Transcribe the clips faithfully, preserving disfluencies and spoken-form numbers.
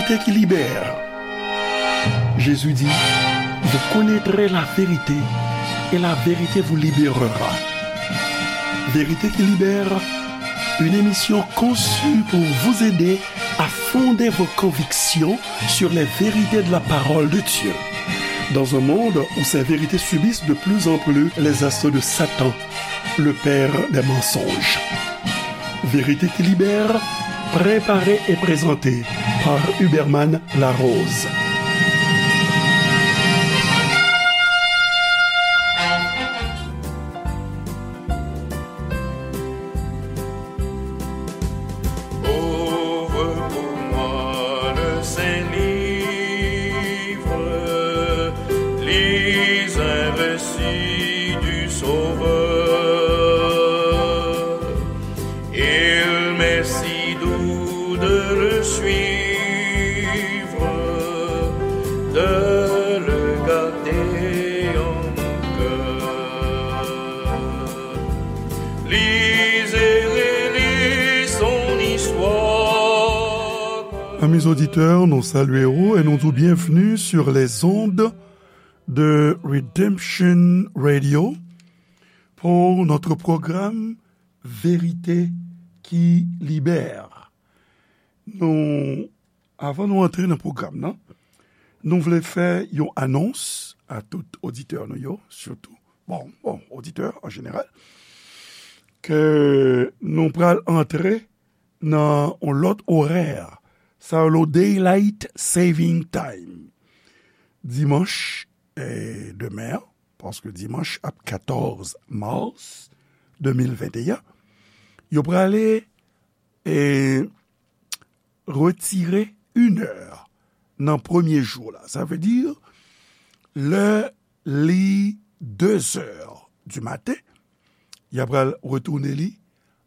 Vérité qui libère. Jésus dit, vous connaîtrez la vérité et la vérité vous libérera. Vérité qui libère, une émission conçue pour vous aider à fonder vos convictions sur les vérités de la parole de Dieu. Dans un monde où ces vérités subissent de plus en plus les assauts de Satan, le père des mensonges. Vérité qui libère, préparée et présentée par Huberman Larose. Ouvre pour moi le saint livre, lis un récit du Sauveur. Il m'est si doux de le suivre, de le garder en cœur. Lisez, relisez son histoire. Amis auditeurs, nou salye w e nou di w byenvni sur les ondes de Redemption Radio pour notre programme Vérité qui libère. Nou, avan nou antre nan pwogram nan, nou vle fè yon anons a tout oditè nou yo, sitou, bon, bon, oditè an jeneral, ke nou pral antre nan yon lòt orè. Sa rele Daylight Saving Time. Dimanch, eh, demen an, paske dimanch ap katòz mas de mil venteyen, yo prale, eh, retire inè nan premye jou la. Sa vle di, lè li dezè di maten, y a pral retounen li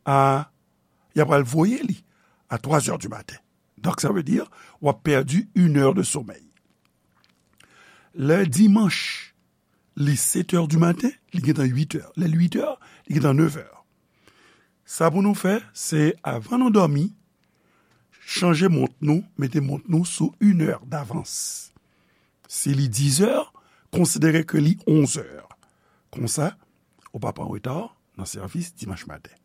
a, y a pral voye li a twazè di maten. Donk, sa vle di, w ap pèdi inè de somèy. Lè dimanch, li setè di maten, li gentan uitè. Lè l uitè, li gentan nevè. Sa pou nou fè, se avan nou dòmi, chanje mont nou, mete mont nou sou inè davans. Si li dizè, konsidere ke li onzè. Konsa, ou p ap an reta nan sèvis dimanch maten.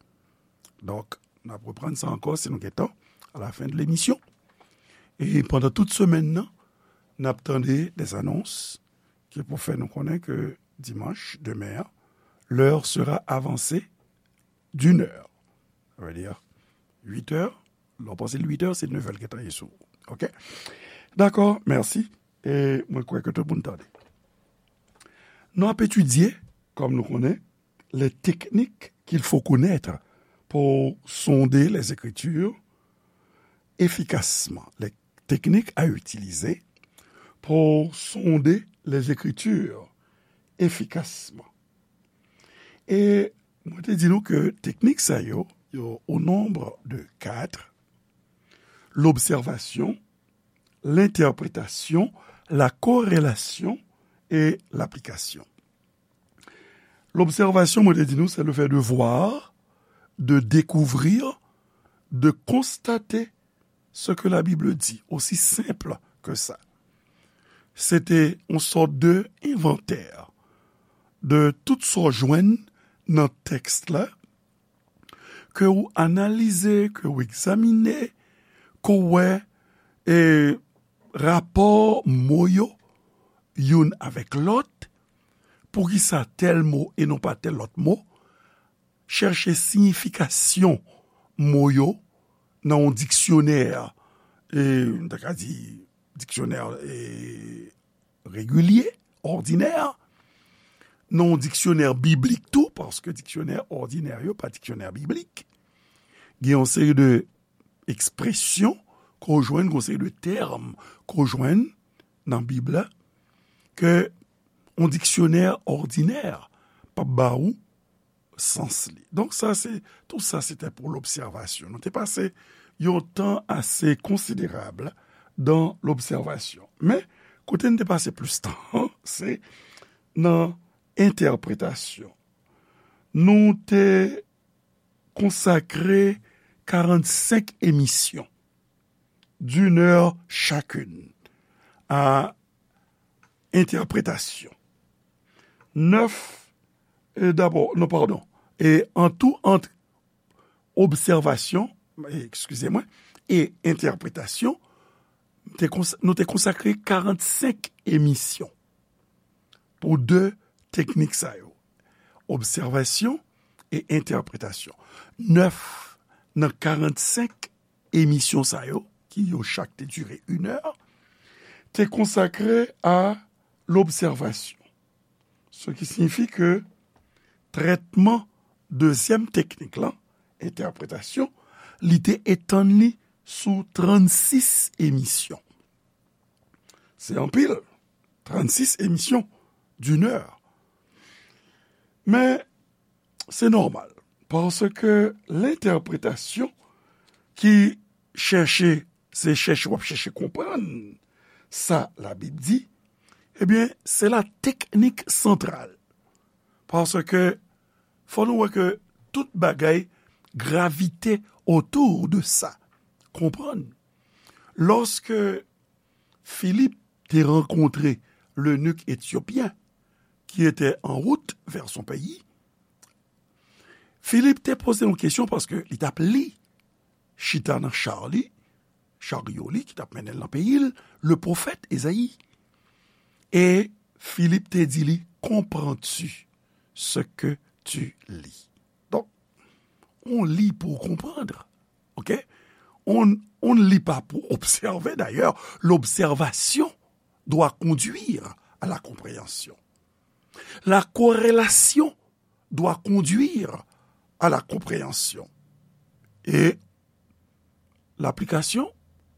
Donk, n ap reprann sa ankò si nou gen tan, à la fin de l'émission. E pandan tout semèn nan, n ap tande des annonces ki pou fè nou konnen ke dimanch, demen an, l'heure sera avancée d'une heure. Sa vle di, uitè, lè w panse l uitè, se nevè l gentan ye sou ou. Oke? Dakò, mèsi. E mwen kwè ke tout moun tande. Nou ap etidye, kòm nou konnen, les techniques qu'il faut connaître pour sonder les Écritures efficacement. Les techniques à utiliser pour sonder les Écritures efficacement. E mwen te di nou ke teknik sa yo, yo au nombre de quatre, l'observation, l'interprétation, la corrélation et l'application. L'observation, mwen te di nou, c'est le fait de voir, de découvrir, de constater ce que la Bible dit, aussi simple que ça. Se te yon sòt de envantè de tout sa w jwenn nan tèks la, ke w analize, ke w egzamine, ke w wè, e, rapò mo yo youn avèk lòt, poukisa tèl mo e non pa tèl lòt mo, chèche siyifikasyon mo yo nan yon diksyonè, e, m ta ka di diksyonè, e, regilye, òdinè, nan yon diksyonè biblik tou, paske diksyonè òdinè yo pa diksyonè biblik. Gen yon seri de ekspresyon ke w jwenn, gen yon seri de tèm ke w jwenn nan Bib la, ke yon diksyonè òdinè p ap ba ou sans li. Donk, sa, se, tout sa, se te pou lobsèvasyon. Nou te pase yon tan ase konsiderab dan lobsèvasyon. Men, kote n te pase plis tan, se nan entèpretasyon. Nou te konsakre karannsenk emisyon d'une heure chacune à interprétation. Neuf, e dabò, non, padon, e an tou, ant obsèvasyon, eskize mwen, e entèpretasyon, te kons-, nou te konsakre karannsenk emisyon pou de teknik sa yo, obsèvasyon e entèpretasyon. Nèf nan karannsenk emisyon sa yo, ki yo chak te dire inè, te konsakre a lobsèvasyon. Ce qui signifie que trètman dezyèm teknik lan, entèpretasyon, li te etann li sou trannsis emisyon. Se anpil, trannsis emisyon d'une heure. Men, se nòmal, paske lentèpretasyon ki chèche, se chèche, w ap chèche konprann sa Labib di, ebyen, se la teknik santral. Paske fò nou wè ke tout bagay gravite otou de sa. Konprann. Lòske Filip te rankontre lenik etyopyen ki ete an wout vè son peyi, Filip te poze yon kesyon paske li t ap li, chita nan cha li, charyo li ki t ap mennen l nan peyi l, le pwofèt Ezayi. E Filip te di li, comprends-tu ce que tu lis? Donk, on lit pour comprendre. OK? On, on ne lit pas pour observer. D'ailleurs, l'observation doit conduire à la compréhension. La corrélation doit conduire à la compréhension. E laplikasyon,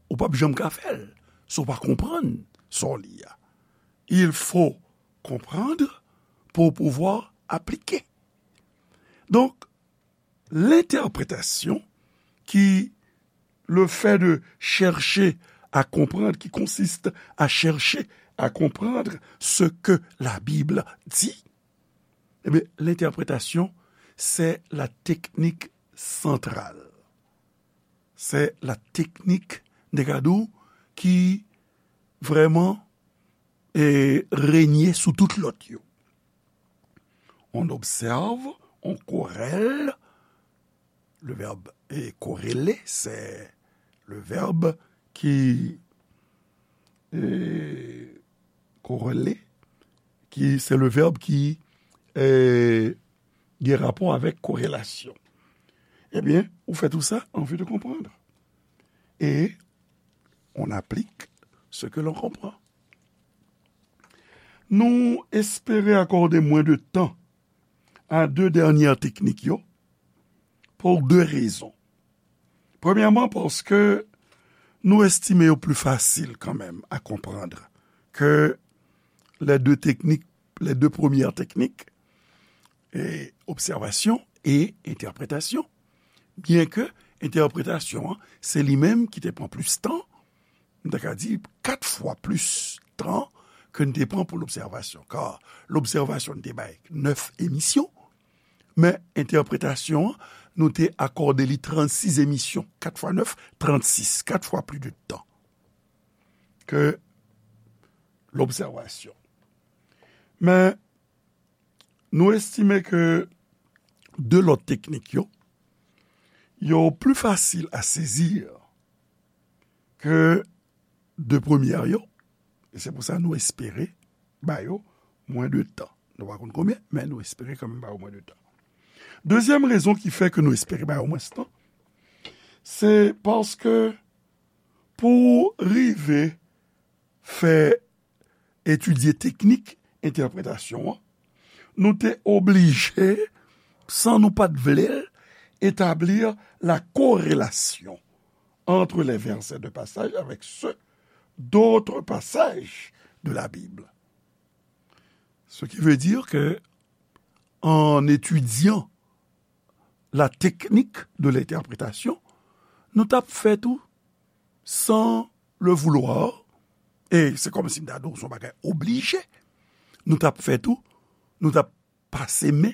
ou p ap janm ka fè l si w pa konprann sa w li a. Il faut comprendre pour pouvoir appliquer. Donc, l'interprétation, qui, le fait de chercher à comprendre, qui consiste à chercher à comprendre ce que la Bible dit, eh bien, l'interprétation, c'est la technique centrale. C'est la technique, m te ka di w, ki vrèman, eh, renye sou tout lòt yo. On observe, on corrèle. Le verbe est corrélé, c'est le verbe qui, eh, corrélé, qui, c'est le verbe qui, eh, gen rapò avèk korelasyon. Ebyen, ou fè tou sa an vi de konprann. E on applique ce que l'on comprend. Nou espere akòde mwen de tan a de dènyè teknik yo pou de rezon. Premyèman, paske nou estime yo pli fasil kanmenm a konprann ke les deux techniques, les deux premières techniques, e, obsèvasyon e entèpretasyon. Byenke entèpretasyon an, se li menm ki te pran plis tan, m ta ka di kat fwa plis tan ke n te pran pou lobsèvasyon. Kar lobsèvasyon n te bay nèf emisyon, men entèpretasyon an, nou te akòde li trannsis emisyon, kat fwa nèf, trannsis, kat fwa plis de tan ke lobsèvasyon. Men, nou estime ke de lòt teknik yo, yo pli fasil a sezi ke de premyè yo, e se pou sa nou espere ba yo mwen de tan. Nou pa konn konbyen, men nou espere kanmenm ba yo mwen de tan. Dezyèm rezon ki fè ke nou espere ba yo mwens tan, se paske pou rive fè etidye teknik entèpretasyon an, nou te oblije, san nou pa t vle l, établir la corrélation entre les versets de passage avec ceux d'autres passages de la Bible. Ce qui veut dire que, en étudiant la technique de l'interprétation, nou t ap fè tou san le vouloir, e se kòmsi m ta di w se yon bagay oblije, nou t ap fè tou, nou t ap pase men,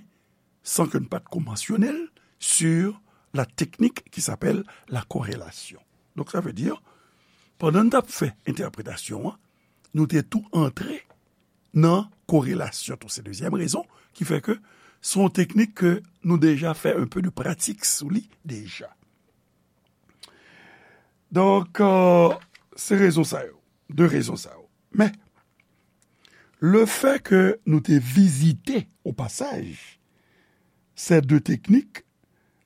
san ke n pa t ko mansyone l, sur la technique qui s'appelle la corrélation. Donc, ça veut dire, pandan n t ap fè entèpretasyon an, nou te tou antre nan korelasyon tou. Se dezyèm rezon ki fè ke se yon teknik ke nou deja fè un peu de pratik sou li deja. Donk, euh, se rezon sa yo, de rezon sa yo. Men, lefètke nou te vizite o pasaj ces deux techniques,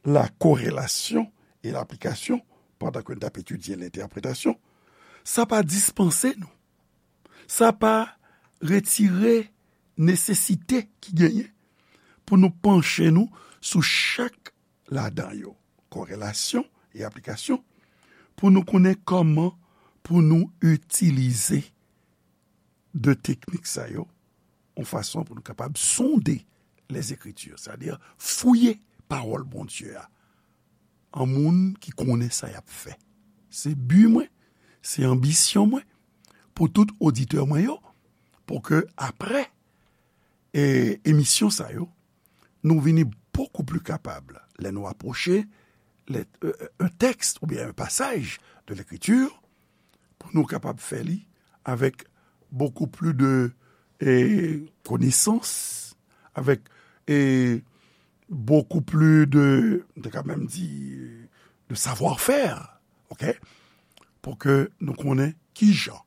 la corrélation et l'application, pandan ke n t ap etidye lentèpretasyon, sa pa dispanse nou. Sa pa retire nesesite ki genyen pou nou panche nou sou chak ladan yo, korelasyon e aplikasyon, pou nou konnen kòman pou nou itilize de teknik sa yo, yon fason pou nou kapab sonde lèzekriti, sètadi fouye pawòl Bondye a, an moun ki konnen sa y ap fè. Se bi mwen, se anbisyon mwen pou tout oditè mwen yo, pou ke apre e, emisyon sa yo, nou vini bokou pli kapab lè nou apwoche lè, euh, un texte oubyen un passage de l'écriture, pou nou kapab fè li avèk bokou pli de, e, konesans, avèk, e, bokou pli de, m te ka menm di, de savoir-faire, ok? Pou ke nou konnen kijan.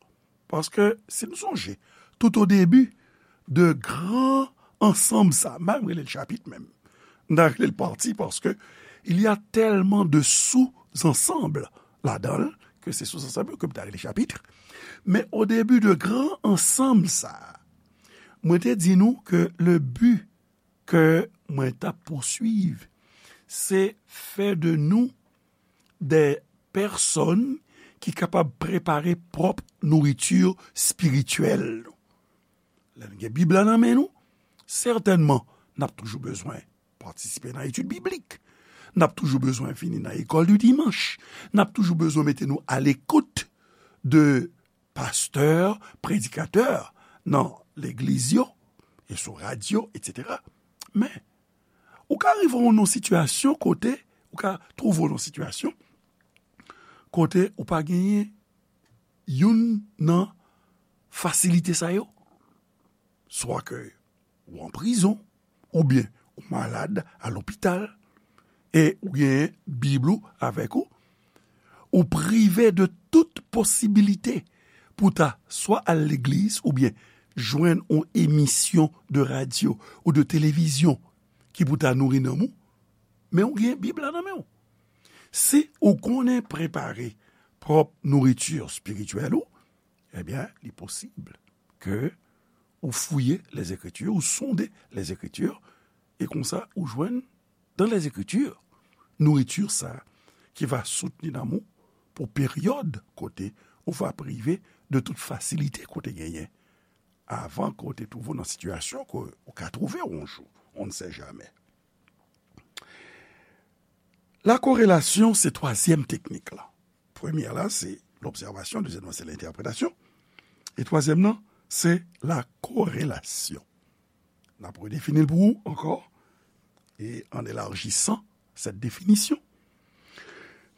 Paske, si nou sonje, tout o debi de gran ansanm sa, m pa menm rele l chapit menm, m ta rele l pati, paske il y a tellement de sous-ensembles ladan l, ke se sous-ensemble yo ke m ta rele chapit. Men o debi de gran ansanm sa, mwen te di nou ke le bi ke mwen t ap pouswiv, se fè de nou de pèsòn ki kapab prepare pwòp nouriti espirityèl nou. Lè n gen Bib la nan men nou, sètènman, n ap toujou bezwen patisipe nan etid biblik. N ap toujou bezwen vini nan lekòl di dimanch. N ap toujou bezwen mete nou alekout de pastè, predikatè nan legliz yo, e sou radyo, etsetera. Men, ou ka rive w nan sitiyasyon kote, ou ka twouve w nan sitiyasyon kote ou pa genyen youn nan fasilite sa yo. Swa ke ou an prizon, oubyen ou malad a lopital, e ou genyen Bib ou avèk ou, ou prive de tout posibilite pou ta swa al legliz oubyen jwenn yon emisyon de radyo ou de televizyon ki pou ta nouri nanm ou, men ou gen Bib la nan men w. Si ou konnen prepare pwòp nouriti espirityèl ou, ebyen, li posib ke ou fouye Lèzekriti, ou sonde Lèzekriti, e konsa ou jwenn dans les Écritures, nouriti sa ki va soutni nanm ou pou peryòd kote ou va prive de tout fasilite ke w te genyen avan ke w te twouve w nan sitiyasyon ke ou ka twouve w yon jou, on ne sait jamais. La corrélation, se twazyèm teknik la. Premyè la, se l'observation, dezyèm nan, se l'interprétation, e twazyèm nan, se la corrélation. N ap redefini l pou ou ankò, et en élargissant cette définition,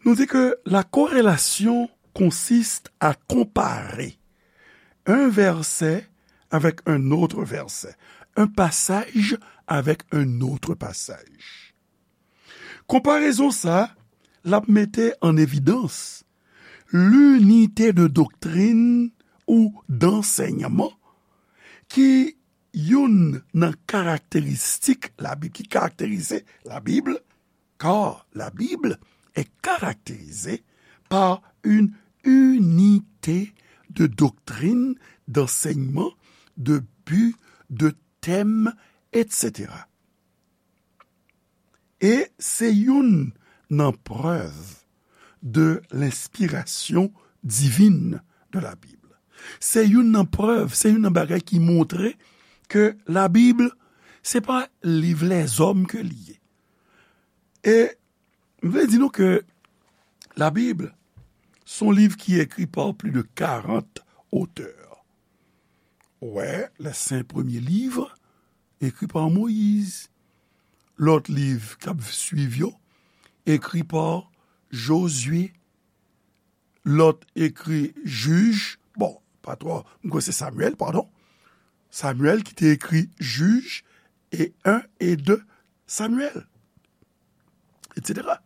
nous dit que la corrélation consiste à comparer un verset avec un autre verset, un passage avec un autre passage. Konparezon sa, l ap mete an evidans linite de doktrin ou d'ansèyman ki youn nan karakteristik Labib, ki karakterize Labib, car la Bible est caractérisée par une unité de doctrine, d'enseignement, de but, de thème, etsetera. E se youn nan prèv de lenspirasyon divin de la Bible. Se youn nan prèv, se youn nan bagay ki montre ke Labib, se pa liv lèzòm ke li ye. E m vle di nou ke Labib, se yon liv ki ekri pa plis de karant otè. Ou wè, les cinq premiers livres écrits par Moïse. Lòt liv k ap swiv yo, ekri pa Jozye, lòt ekri Jij, bon, pa twò, m kwè se Samyèl, padon. Samyèl ki te ekri Jij e en e de Samyèl, etsetera.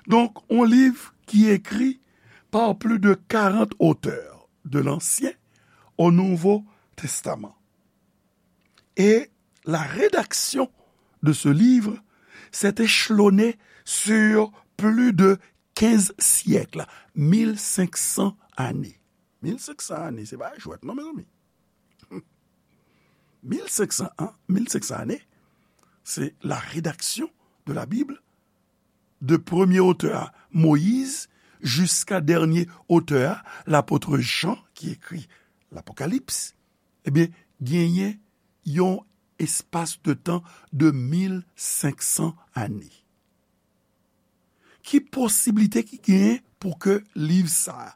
Donk, yon liv ki ekri par plus de quarante auteurs, de l'Ancien au Nouveau Testament. Et la rédaction de ce livre s'est échelonnée sur plus de quinze siècles, mil senk san ane. Mil senk san ane, se pa jwèt non, mezanmi. Mil senk san an, mil senk san ane, c'est la rédaction de la Bible, de premye otè a, Moyiz, jiska dènye otè a, lapot Jan, ki ekri Lapokalips. Ebyen, genyen yon espas de tan de mil senk san ane. Ki posiblite ki genyen pou ke liv sa a,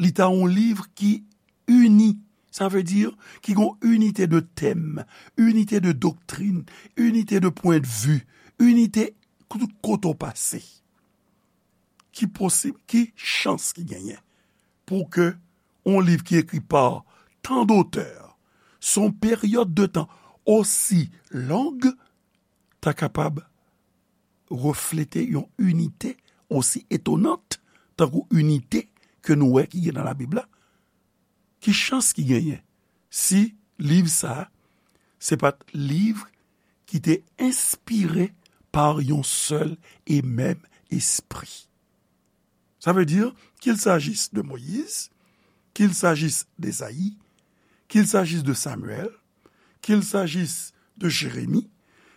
li ta yon liv ki ini, sa vle di ki gen yon inite de tèm, inite de doktrin, inite de pwendvi, inite tout kote w pase? Ki posib, ki chans ki genyen pou ke yon liv ki ekri pa tan dotè, sou yon peryòd de tan osi long, ta kapab reflete yon inite osi etonant tankou inite ke nou wè ki gen nan Labib la? Ki chans ki genyen si liv sa a se pa t liv ki te enspire pa yon sèl e menm espri? Sa vle di, qu'il s'agisse de Moïse, qu'il s'agisse d'Ésaïe, qu'il s'agisse de Samuel, qu'il s'agisse de Jérémie,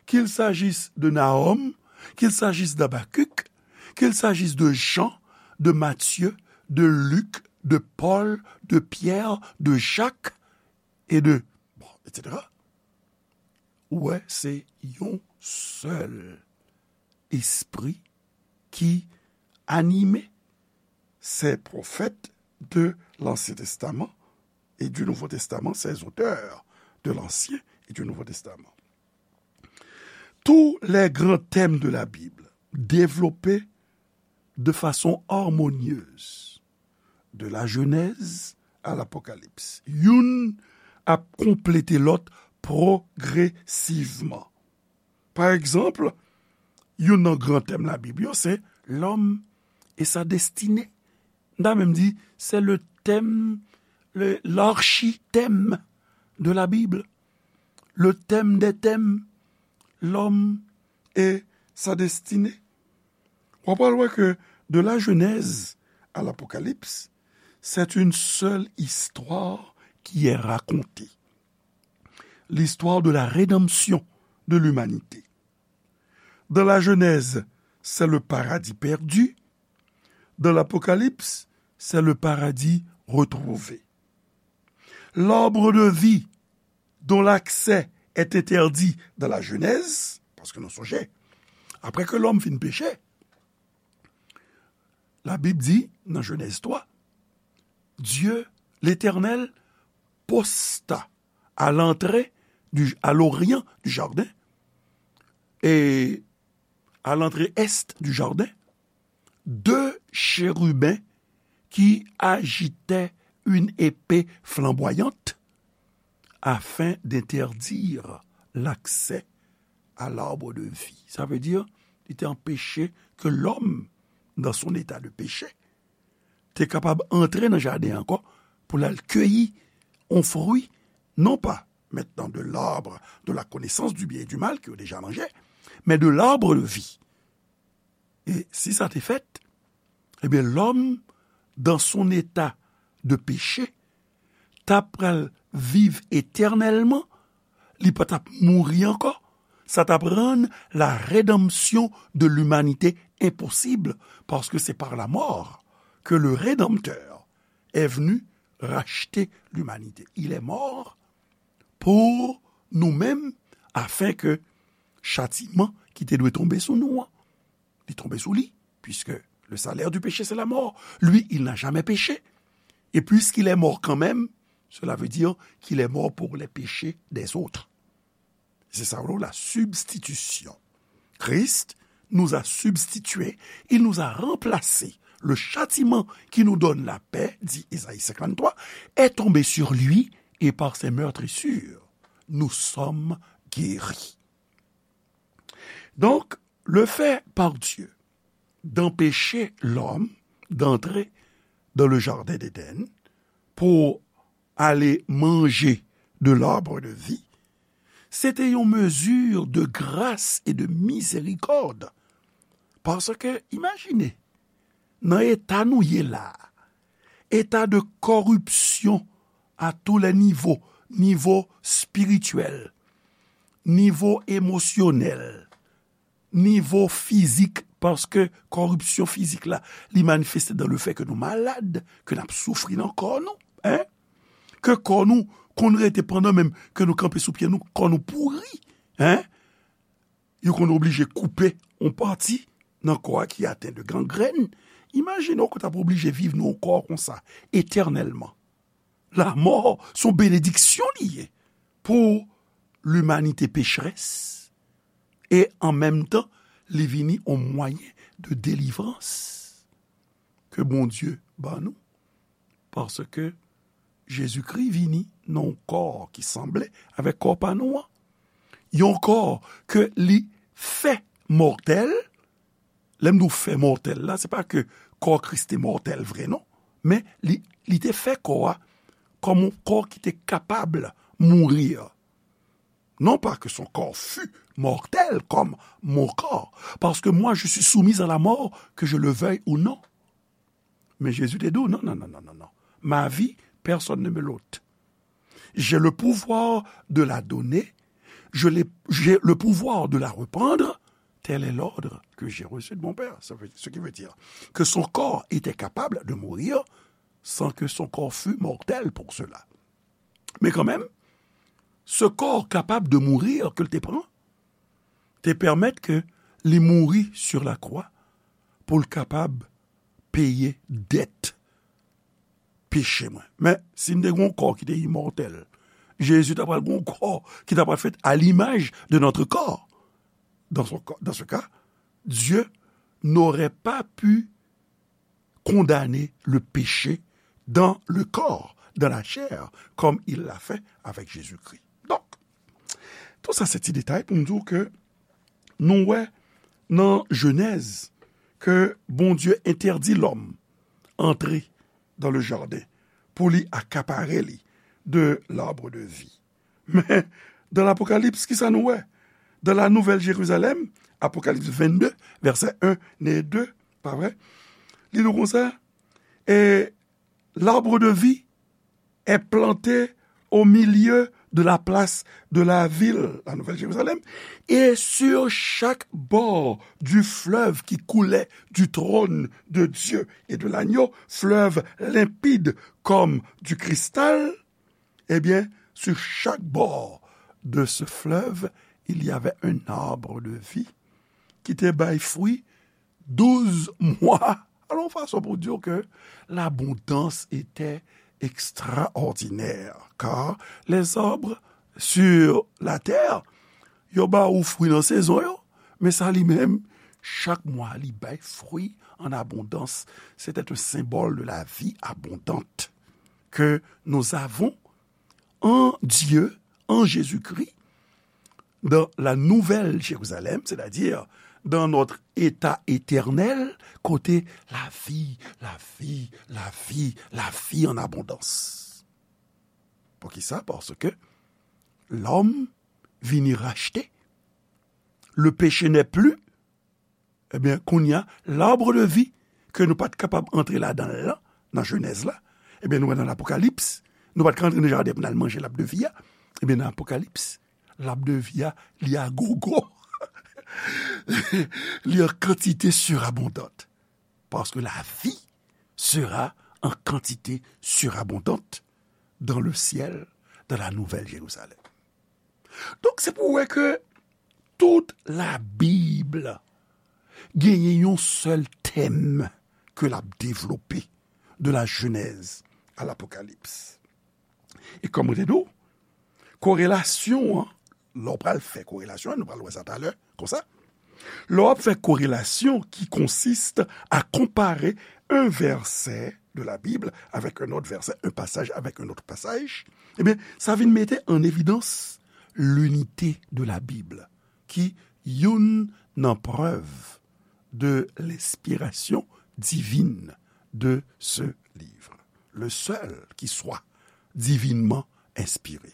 qu'il s'agisse de Nahum, qu'il s'agisse d'Habacuc, qu'il s'agisse de Jean, de Matthieu, de Luc, de Paul, de Pierre, de Jacques et de, bon, etsetera. Ou wè, se yon sèl espri ki anime ces prophètes de l'Ancien Testament et du Nouveau Testament, ces auteurs de l'Ancien et du Nouveau Testament. Tous les grands thèmes de la Bible développés de façon harmonieuse, de la Genèse à l'Apocalypse. Youn ap konplete lòt pwogresivman. Pa egzanp, youn nan gran tèm Labib yo se l'homme et sa destinée. M ta menm di, c'est le thème, le, l'archithème de la Bible. Le thème des thèmes, l'homme et sa destinée. W ap pral wè ke de la Genèse à l'Apocalypse, c'est une seule histoire qui est racontée. L'histoire de la rédemption de l'humanité. Dans la Genèse, c'est le paradis perdu. Dans l'Apocalypse, c'est le paradis retrouvé. L'arbre de vie dont l'accès est interdit dans la Genèse, paske nou sonje, apre ke lòm fin peche, Labib di, nan Genèse twa, Dieu, l'Éternel, posta à l'entrée du, à l'orient du jardin, et à l'entrée est du jardin, deux chérubins qui agitaient une épée flamboyante afin d'interdire l'accès à l'arbre de vie. Sa vle di, li te anpeche ke lòm, dans son état de péché, te kapab antre nan jaden ankò pou l al keyi yon fwi, non pa maintenant de l'arbre de la connaissance du bien et du mal ke yo deja manje, men de l'arbre de vie. E si sa te fèt, ebyen, lòm, dans son état de péché, t ap pral viv etènèlman, li pa t ap mouri ankò. Sa t ap rann la rédemption de l'humanité impossible, parce que c'est par la mort que le Rédempteur est venu racheter l'humanité. Il est mort pour nous-mêmes, afin que châtiment ki te dwe tonbe sou nou an, li tonbe sou li, puisque le salaire du péché, c'est la mort. Lui, il n'a jamais péché. Et puisqu'il est mort quand même, cela veut dire qu'il est mort pour les péchés des autres. C'est ça, la substitution. Christ nous a substitué, il nous a remplacés Le châtiment qui nous donne la paix, dit Ésaïe cinquante-trois, est tombé sur lui, et par ses meurtrissures, nous sommes guéris. Donc, le fait par Dieu d'empêcher l'homme d'entrer dans le jardin d'Éden pour aller manger de l'arbre de vie, se te yon mezi de gras e de mizerikòd. Paske, imajine, nan eta nou ye la, eta de kòripsyon a tou lè nivo, nivo espirityèl, nivo emosyonèl, nivo fizik, paske kòripsyon fizik la, li manifeste dan le fè ke nou malad, ke n ap soufri nan kò nou, en? Ke kò nou konn rete pandan menm ke nou kanpe sou pye nou, kò nou pouri, en? Yo konn oblije koupe yon pati nan kò a ki aten de gangrèn. Imajine w ke w t ap oblije viv nan yon kò konsa, etènèlman. Lanmò se yon benediksyon li ye pou limanite pecherès. E an menm tan, li vini yon mwayen de delivrans ke Bondye ban nou. Paske Jezikri vini nan yon kò ki sanble avèk kò pa nou an. Yon kò ke li fè mòtèl. Lè m di w fè mòtèl la, se pa ke kò Kris te mòtèl vre, non. Men li, li te fè kò a kòm yon kò ki te kapab mouri. Non pas que son corps fût mortel comme mon corps, parce que moi je suis soumise à la mort, que je le veuille ou non. Men Jezi te di w, non, non, non, non, non, non. Ma vie, personne ne me l'ôte. J'ai le pouvoir de la donner, je l'ai, j'ai le pouvoir de la reprendre. Tel est l'ordre que j'ai reçu de mon Père. Ça veut, ce qui veut dire que son corps était capable de mourir sans que son corps fût mortel pour cela. Men kanmenm, se kò kapab de mourir ke l te pran, te pèmèt ke li mouri sur la croix pou l kapab peye dèt peche mwen. Men, si m te gen yon kò ki te imòtèl, Jezi ta pral gen yon kò ki ta pral fèt à l'image de notre corps. Dans son, dans ce cas, Dieu n'aurait pas pu condamner le péché dans le corps, dans la chair, comme il l'a fait avec Jésus-Christ. Donk, tout sa se ti detay pou m di w ke nou wè nan Jenèz ke Bondye entèdi lòm antre dans le jardin pou li akapare li de l'arbre de vie. Men, dans l'Apocalypse, kisa nou wè? Dans la Nouvelle Jérusalem, Apocalypse vingt-deux, verset un et deux, pa vre? Li di konsa, et l'arbre de vie est planté au milieu de la place de la ville, la Nouvelle Jérusalem, et sur chaque bord du fleuve qui coulait du trône de Dieu et de l'agneau, fleuve limpide comme du cristal, eh bien, sur chaque bord de ce fleuve, il y avait un arbre de vie qui te bay fwi douz mwa. Alò, yon fason pou di w ke l'abondance était extraordinaire, car les arbres sur la terre, yo ba ou fwi nan sezon yo, men sa li menm, chak mwa, li bay fwi an abondans. C'était un symbole de la vie abondante que nous avons en Dieu, en Jésus-Christ, dans la Nouvelle Jérusalem, c'est-à-dire dans notre état éternel, kote lavi, lavi, lavi, lavi an abondans. Poukisa? Paske lòm vini rachte. Le péché n'est plus. Ebyen, kounye a, l'arbre de vie, ke nou pa t kapab antre ladan l lan, nan Jenèz la, ebyen, nou wè nan Lapokalips, nou pa t ka antre nan jaden pou n al manje l'arbre de vie a. Ebyen, nan Apokalips, l'arbre de vie a, li a gogo. Li an kantite surabondante. Parce que la vie sera en quantité surabondante dans le ciel, dans la Nouvelle Jérusalem. Donk, se pou w wè ke tout Labib genyen yon sèl tèm ke l ap devlope, de la Genèse à l'Apocalypse. E kòm mwen te di w, korelasyon an, lè w pral fè korelasyon an, nou pral wè sa talè, konsa. Lè w ap fè korelasyon qui consiste à comparer un verset de la Bible avec un autre verset, un passage avec un autre passage, ebyen, sa vin mete an evidans l'unité de la Bible, ki youn nan prèv de l'inspiration divine de ce livre. Le seul qui soit divinement inspiré.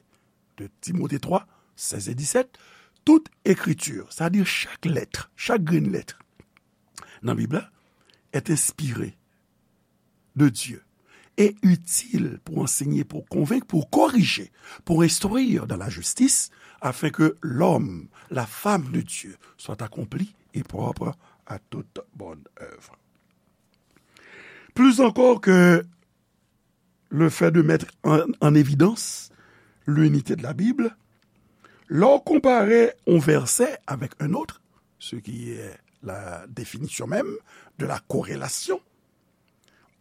De Timote twa, sèz e disèt, toute écriture, c'est-à-dire chaque lettre, chaque grain de lettre, nan Bib la, est inspirée de Dieu et utile pour enseigner, pour convaincre, pour corriger, pour instruire dans la justice, afin que l'homme, la femme de Dieu, soit accompli et propre à toute bonne œuvre. Plus encore que le fait de mettre en, en évidence l'unité de la Bible, lè w konpare yon vèsè avèk un autre, ce qui est la définition même de la corrélation,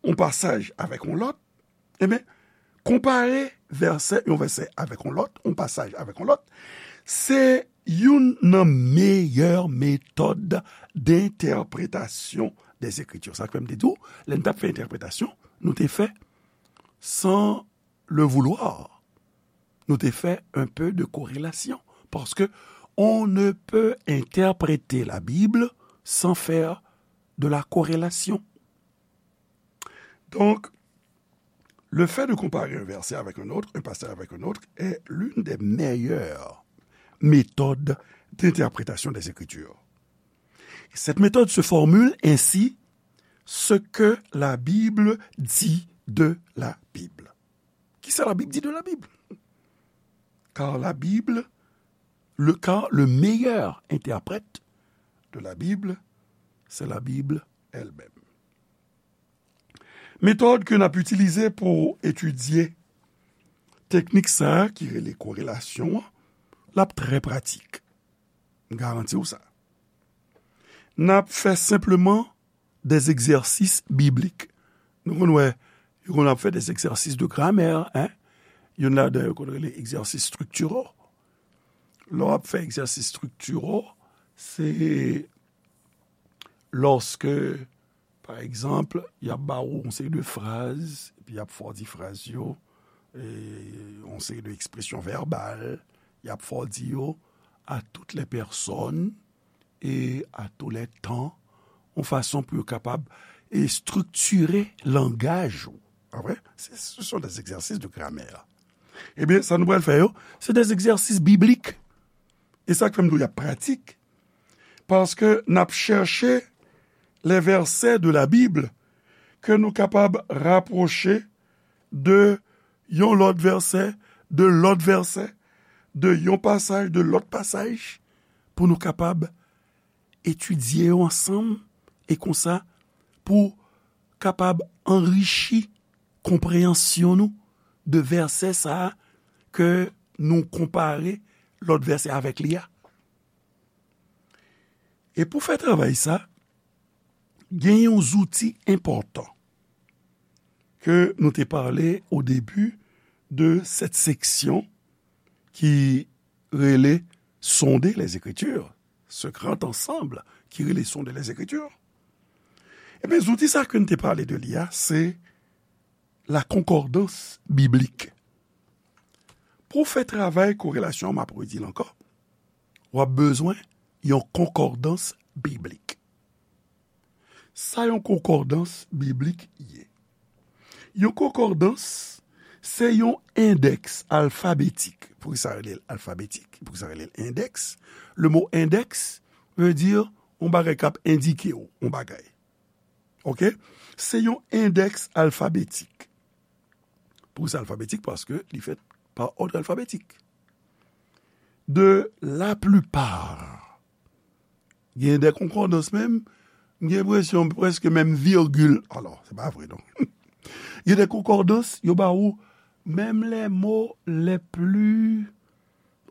yon pasaj avèk yon lòt, ebyen, konpare vèsè, yon vèsè avèk yon lòt, yon pasaj avèk yon lòt, se youn nan meyè metòd d'entèpretasyon des Écritures. Sa k fè m te di w, lè n t ap fè entèpretasyon, nou te fè sans le vouloir, nou te fè un peu de corrélation. Parce que on ne peut interpréter la Bible sans faire de la corrélation. Donc, le fait de comparer un verset avec un autre, un passage avec un autre, est l'une des meilleures méthodes d'interprétation des Écritures. Cette méthode se formule ainsi, ce que la Bible dit de la Bible. Kisa la Bib di de la Bib? Car la Bible, le, car le meilleur interprète de la Bible, c'est la Bible elle-même. Metòd ke n ap itilize pou etidye teknik sa a ki rele korelasyon an, l ap trè pratik. M garanti w sa. N ap fè senpleman des exercices bibliques. Nou konn wè, yo konn ap fè des exercices de grammaire, hein? Youn ladan yo konn rele exercices structuraux. Lè w ap fè exercices structuraux, se lòske, pa egzanp, y ap ba ou yon seri de fraz, epi y ap fè w di fraz yo, e, yon seri de ekspresyon vèbal, y ap fè w di yo à toutes les personnes et à tous les temps, yon fason pou yo kapab, e, estriktire langaj ou. Pa vre? Se, ce sont des exercices de grammaire. Ebyen, sa nou pral fè yo, se des exercices bibliques. E sa k fè m di w y ap pratik. Paske n ap chèche les versets de la Bible ke nou kapab rapwoche de yon lòt vèsè, de lòt vèsè, de yon pasaj, de lòt pasaj, pou nou kapab etidye yo ansanm, e konsa, pou kapab anrichi konpreyansyon nou de vèsè sa a ke nou konpare lòt vèsè avèk li a. E pou fè travay sa, gen yon zouti enpòtan ke nou te pale au début de cette section ki rele Sonder les Écritures, ce grand ensemble ki rele Sonder les Écritures. Ebyen, zouti sa ke n te pale de li a, se la concordance biblique. Pou w fè travay korelasyon an, m ap redi l ankò, w ap bezwen yon konkòdans biblik. Sa yon konkòdans biblik ye? Yon konkòdans, se yon endèks alfabetik. Poukisa rele l alfabetik? Poukisa rele l endèks? Le mo endèks veut dire yon bagay k ap endike w yon bagay. Oke? Se yon endèks alfabetik. Poukisa alfabetik? Paske li fèt pa òd alfabetik. De la plupart, gen de konkòdans menm, m gen enpresyon prèske menm virgil. Alò, se pa vre, non. Gen de konkòdans, yo ba ou menm les mots les plus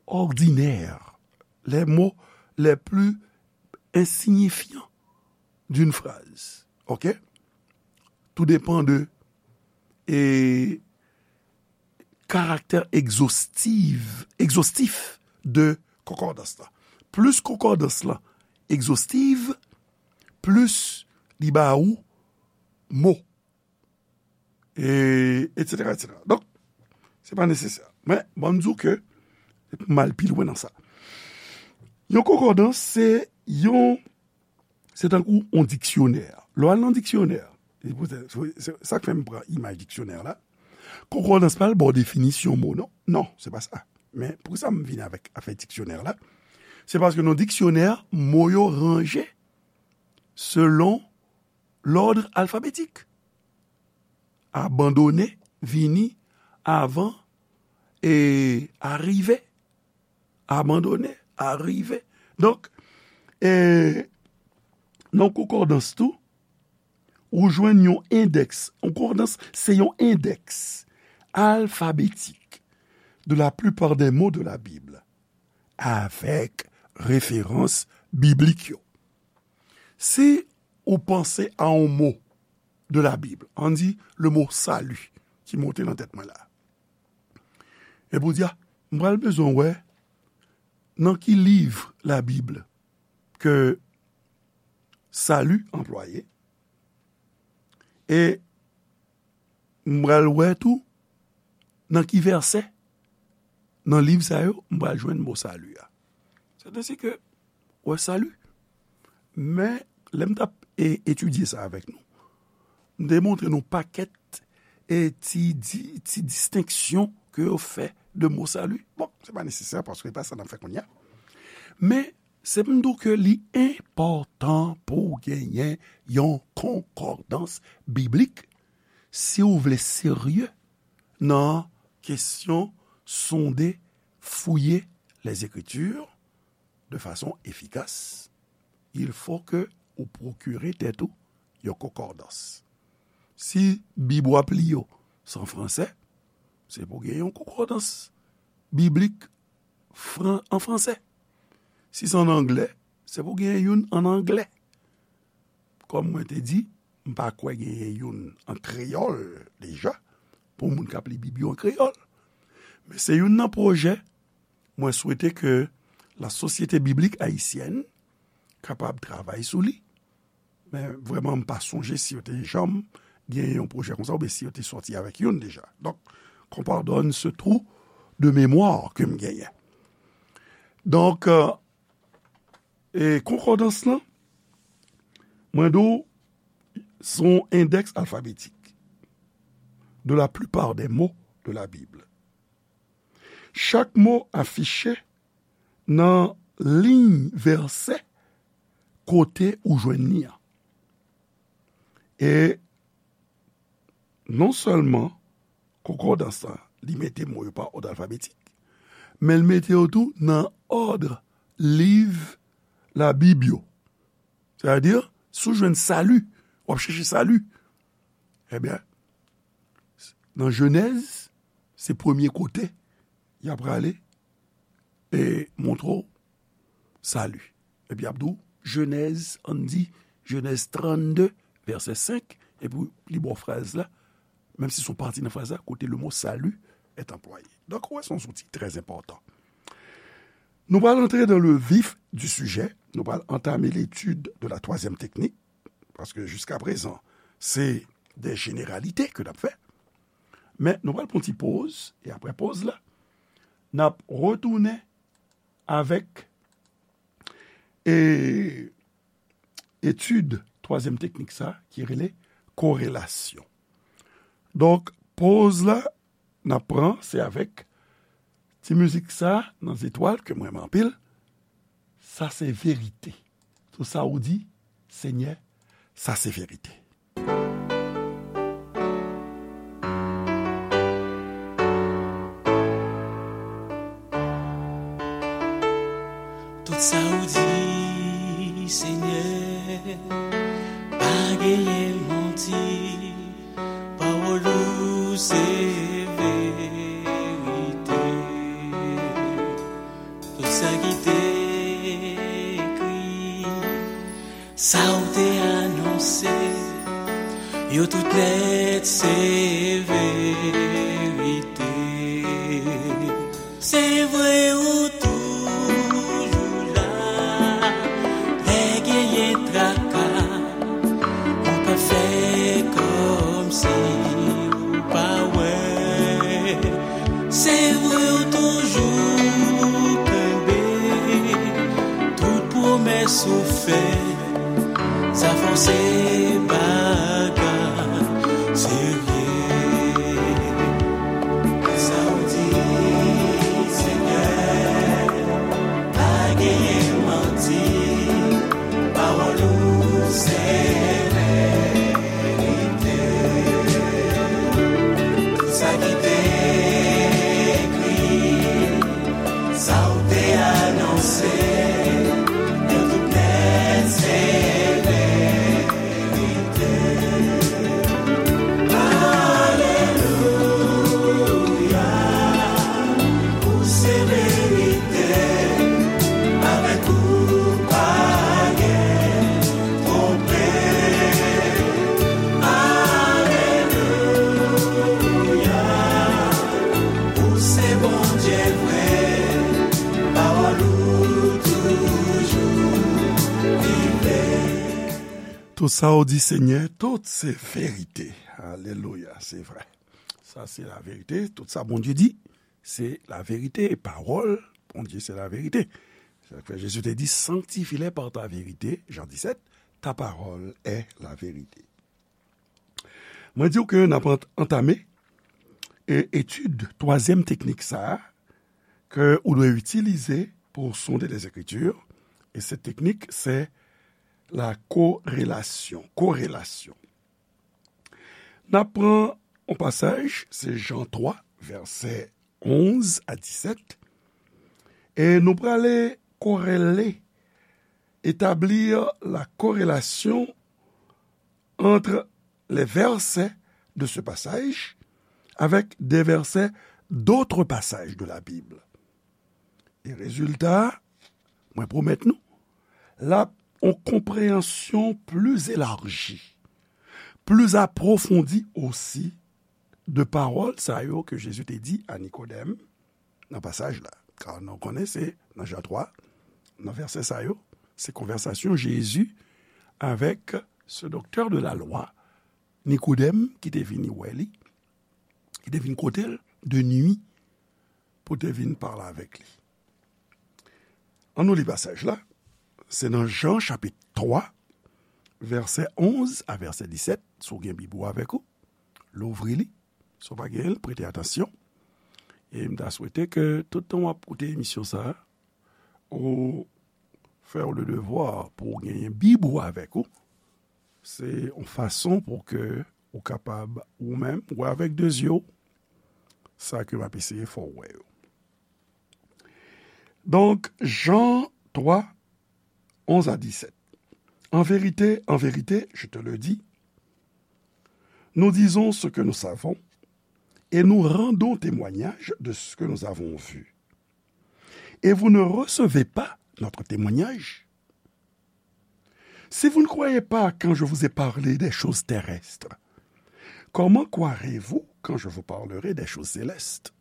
ordinaires, les mots les plus insignifiants d'une phrase. Oke? Tout dépend de, e, karaktè egzostiv, egzostif de konkòdans la. Plis konkòdans la egzostiv, plis li ba ou mo. E, etsetera, etsetera. Donk, se pa nesesè. Men, ban m di w ke, m al pi lwen nan sa. Yon konkòdans, se yon, se tankou yon diksyonè. Lè w al nan diksyonè, se pou, se, se, se sa k fè m pran imaj diksyonè la. Konkòdans pa al ba w definisyon mo, non. Non, se pa sa. Men, poukisa m vin avèk afè diksyonè la? Se paske nan diksyonè, mo yo ranje selon lòd alfabetik. Abandone vini avan e arive. Abandone, arive. Donk, e, nan konkòdans tou, ou jwenn yon endèks. Konkòdans, se yon endèks alfabetik de la plupart des mots de la Bible, avèk referans biblik yo. Si ou panse a yon mo de la Bible, ann di le mot salut, ki monte nan tèt mwen la. Epi ou di, a, m pral bezwen wè nan ki liv Labib ke salut anplwaye, e m pral wè tou nan ki vèsè nan liv sa yo m pral jwenn mo salut a. Sètadi ke, wè, salut. Men, lè m t ap, e, etidye sa avèk nou, m te montre nou pakèt, e, ti, di, ti distenksyon ke yo fè de mo salut. Bon, se pa nesesè paske se pa sa n ap fè kounye a. Men, se pou m di w ke li enpòtan pou w genyen yon konkòdans biblik si w vle serye nan kesyon sonde, fouye les Écritures de façon efficace, il faut que ou pwokire tèt ou yon konkòdans. Si Bib w ap li yo se an fransè, se pou gen yon konkòdans biblik fran-, an fransè. Si se an anglè, se pou gen youn an anglè. Kòm mwen te di, m pa kwè genyen youn an kreyòl deja, pou moun k ap li Bib yo an kreyòl. Men se youn nan pwojè, mwen swete ke la Société Biblique Haïtienne kapab travay sou li. Men vrèman, m pa sonje si yo te janm genyen yon pwojè konsa, oubyen si yo te sòti avèk youn deja. Donk, qu'on pardonne ce trou de mémoire ke m genyen. Donk, euh, e konkòdans lan, mwen di w, se yon endèks alfabetik de la plupart des mots de la Bible. Chak mo afiche nan liy vèsè kote ou jwenn li an. E non sèlman konkòdans lan, li mete mo yo pa òd alfabetik, men l mete yo tou nan òd liv Labib yo. Sètadi, si w jwenn salut, w ap chèche salut. Ebyen, nan Jenèz, se premye kote y ap prale e montre w salut. Epi y ap di w, Jenèz, ann di, Jenèz trannde, vèsè senk, epi li ba w fraz la, menm si se yon pati nan fraz la, kote le mot salut est employé. Donk, ou wè, se yon zouti trè enpòtan. Nou pral antre dans le vif du sujet, nou pral antame l'étude de la troisième technique, paske jiska prezan, se de jeneralite ke n ap fè. Men nou pral pran ti poz, e apre poz la, n ap retounen avèk, e, etid twazyèm teknik sa, ki rele korelasyon. Donk, poz la, n ap pran, se avèk ti mizik sa nan zetwal ke m renmen anpil. Sa se verite. Tout sa ou di, Senyè, sa se verite. Tout sa ou di, Senyè, pa genyen manti. Pawòl ou se verite. Tout sa ki te ekri, sa ou te anonse, yo tout nèt se verite. Se vre ou toujou la, lè genyen traka, ou pa fè kò Soufè, sa fò se bagay serye. Sa w di, Senyè, pa genyen manti, pawòl ou se verite. Sa ki te ekri, sa w te anonse, yo tout nèt se verite. Alelouya, ou se verite, avèk ou pa gen twonpe. Alelouya, ou se Bondye vre, pawòl ou toujou vive. Tout sa ou di, Senyè, tout se verite. Alelouya, se vre. Sa se laverite. Tout sa Bondye di, se laverite. Pawòl Bondye se laverite. Se sa k fè Jezi te di, sanctifie-les par ta vérité, Jan disèt, ta parole est la vérité. Mwen di w ke n ap ant-, antame e, etid twazyèm teknik sa a ke ou dwe itilize pou sonde Lèzekriti. E se teknik, se la korelasyon. Korelasyon. N ap pran yon pasaj, se Jan twa, vèsè onz a disèt. E nou prale korele, établir la corrélation entre les versets de ce passage avec des versets d'autres passages de la Bible. E rezilta, mwen pwomèt nou, l ap yon konpreyansyon pli elaji, pli apwofondi osi de pawòl sa yo ke Jezi te di a Nikodèm nan pasaj la. Ka nou konnen se nan Jan twa, nan vèsè sa yo, se konvèsasyon Jezi avèk ce docteur de la loi, Nikodèm, ki te vini wè li, ki te vin kote l de nwi pou te vin pale avèk li. An nou li pasaj la. Se nan Jan chapit twa, vèsè onz a vèsè disèt. Si w gen Bib ou avèk ou, louvri li. Si w pa genyen l, prete atansyon. E m ta swete ke tout tan w ap koute emisyon sa a, ou fè w le devwa pou w genyen Bib ou avèk ou. Se yon fason pou ke ou kapab, ou menm, wè avèk de zye w sa ke m ap eseye fè w wè yo. Donk, Jan twa, onz a disèt. En vérité, en vérité, je te le dis, nous disons ce que nous savons et nous rendons témoignage de ce que nous avons vu. Et vous ne recevez pas notre témoignage. Si vous ne croyez pas quand je vous ai parlé des choses terrestres, comment croirez-vous quand je vous parlerai des choses célestes ?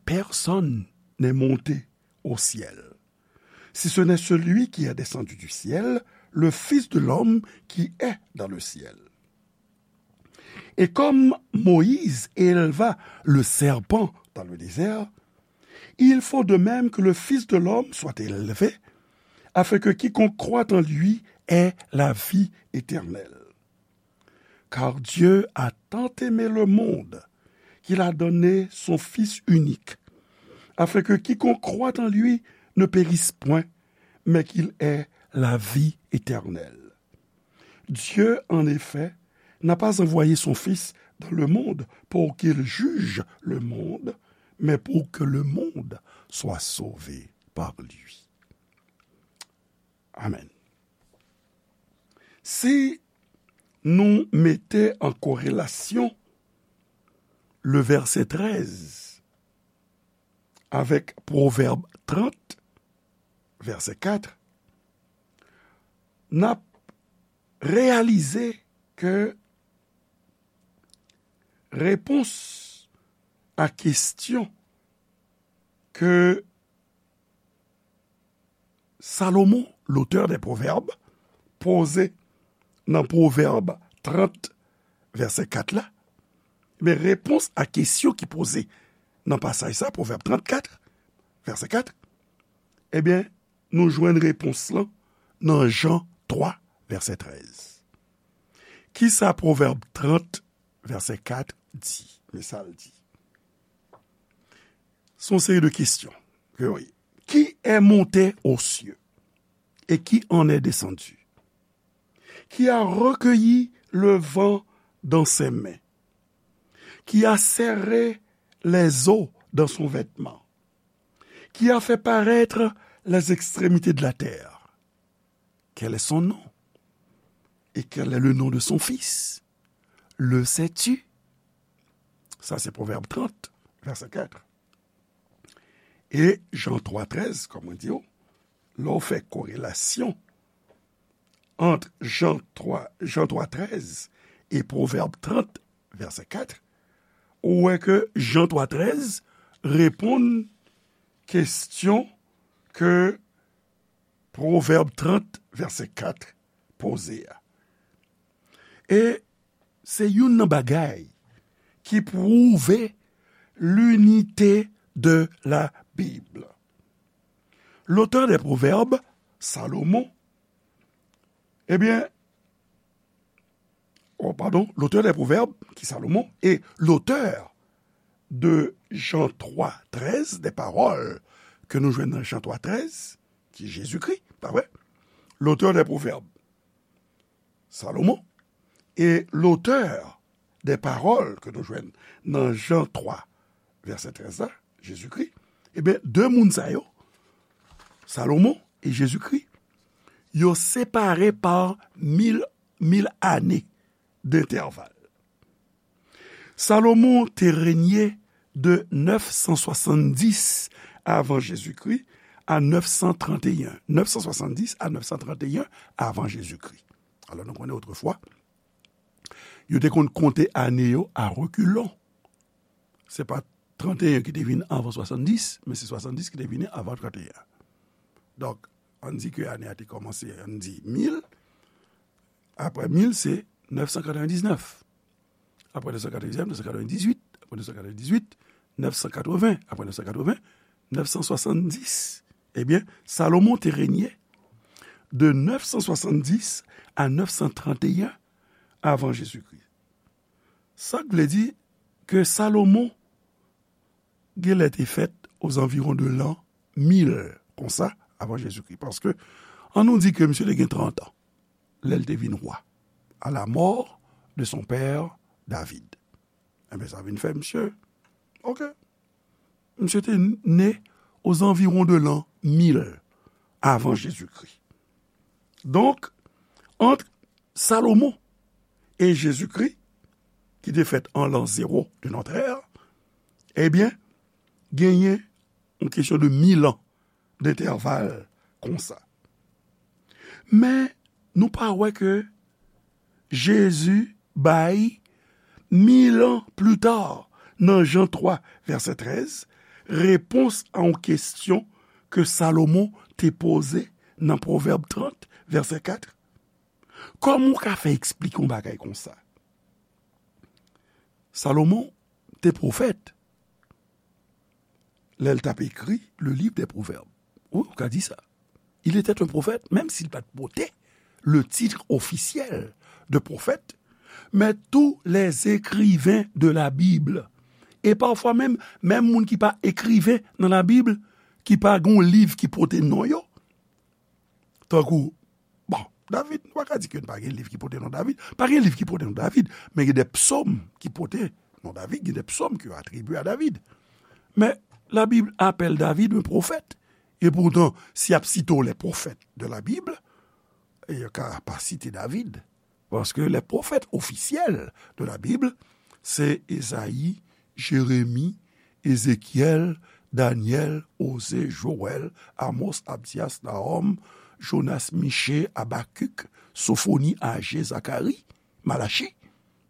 Personne n'est monté au ciel, si ce n'est celui qui est descendu du ciel, le Fils de l'homme qui est dans le ciel. Et comme Moïse éleva le serpent dans le désert, il faut de même que le Fils de l'homme soit élevé, afin que quiconque croit en lui ait la vie éternelle. Car Dieu a tant aimé le monde qu'il a donné son Fils unique, afin que quiconque croit en lui ne périsse point, mais qu'il ait la vie éternelle. Dieu, en effet, n'a pas envoyé son Fils dans le monde pour qu'il juge le monde, mais pour que le monde soit sauvé par lui. Amen. Si nou mete an korelasyon le vèsè trèz avèk Pwovèb trant, vèsè kat, n ap reyalize ke repons a kesyon ke Salomon, l'auteur des Proverbes, poze nan Pwovèb trant, vèsè kat la, men repons a kesyon ki poze nan pasaj sa, Pwovèb trant kat, vèsè kat, ebyen, nou jwenn repons lan nan Jan twa, vèsè trèz. Kisa Pwovèb trant, vèsè kat di? Men sa l di. Se yon seri de kesyon ke yo ye. Qui est monté aux cieux et qui en est descendu, qui a recueilli le vent dans ses mains, qui a serré les eaux dans son vêtement, qui a fait paraître les extrémités de la terre. Quel est son nom? Et quel est le nom de son fils? Le sais-tu? Sa se Pwovèb trant, vèsè kat. E Jan twa trèz, kòm mwen di w, lè w fè korelasyon ant Jan twa, Jan twa trèz e Pwovèb trant, vèsè kat, ou wè ke Jan twa trèz reponn kesyon ke Pwovèb trant, vèsè kat poze a. E se youn nan bagay ki pwouve l'unité de la Bible. L'auteur des Proverbes, Salomon, ebyen, oh, pardon, l'auteur des Proverbes, ki Salomon, e l'auteur de Jan twa trèz, des paroles ke nou jwenn nan Jan twa trèz, ki Jezikri, pa vre? L'auteur des Proverbes, Salomon, e l'auteur des paroles ke nou jwenn nan Jan twa, vèsè trèz la, Jezikri, ebyen, de moun sa yo, Salomon e Jezikri, yo separe pa mil, mil ane dentèval. Salomon te renye de nèf san swasanndis avan Jezikri a nèf san tranteyen. Nèf san swasanndis a nèf san tranteyen avan Jezikri. Alò, nou konnen otrefwa, yo te konn konte ane yo a rekilon. Se pa tranteyen ki te vin avan swasanndis, men se swasanndis ki te vini avan tranteyen. Donk, ann di ke ane a te kòmanse, ann di mil, apre mil, se nèf san katrevendiznèf. Apre nèf san katrevendiznèf, nèf san katrevendizuit, apre nèf san katrevendizuit, nèf san katreven, apre nèf san katreven, nèf san swasanndis. Ebyen, Salomon te renye de nèf san swasanndis a nèf san tranteyen avan Jezikri. Sa k vle di ke Salomon genlè te fèt ozanviwon de lan mil konsa avan Jezikri. Paske, ann nou di ke misye te gen trant an lè l te vin wa, à la mort de son père David. Enben, sa vin fè misye, oke, misye te ne ozanviwon de lan mil avan Jezikri. Donk, ant Salomon e Jezikri, ki te fèt an lan zewo de notre ère, ebyen, genyen yon kesyon de mil an dentèval konsa. Men, nou pa wè ke Jezi bay, mil an pli ta, nan Jan twa, vèsè trèz, repons a yon kesyon ke Salomon te poze nan Pwovèb trant, vèsè kat. Kòman w ka fè eksplike yon bagay konsa? Salomon te pwofèt lè l t ap ekri le livre des Proverbes. Wi, ou ka di sa. Il était un prophète, menm si l pa t pote le titre officiel de prophète, mais tous les écrivains de la Bible, e pafwa menm, menm moun ki pa ekriven nan Labib, ki pa gen yon liv ki pote non yo, tankou, bon, David, nou pa ka di ke pa gen liv ki pote non David. Pa gen liv ki pote non David, men gen de psòm ki pote non David, gen de psòm ki atribye a David. Men Labib apèl David un prophète. E poutan, si y ap site w les prophètes de la Bible, e yo ka pa site David. Paske les prophètes officiels de la Bible, se Ezayi, Jeremi, Ezekyèl, Danyèl, Oze, Jowèl, Amos, Abdyas, Nahòm, Jonas, Miche, Abakik, Sofoni, Aje, Zakari, Malachi.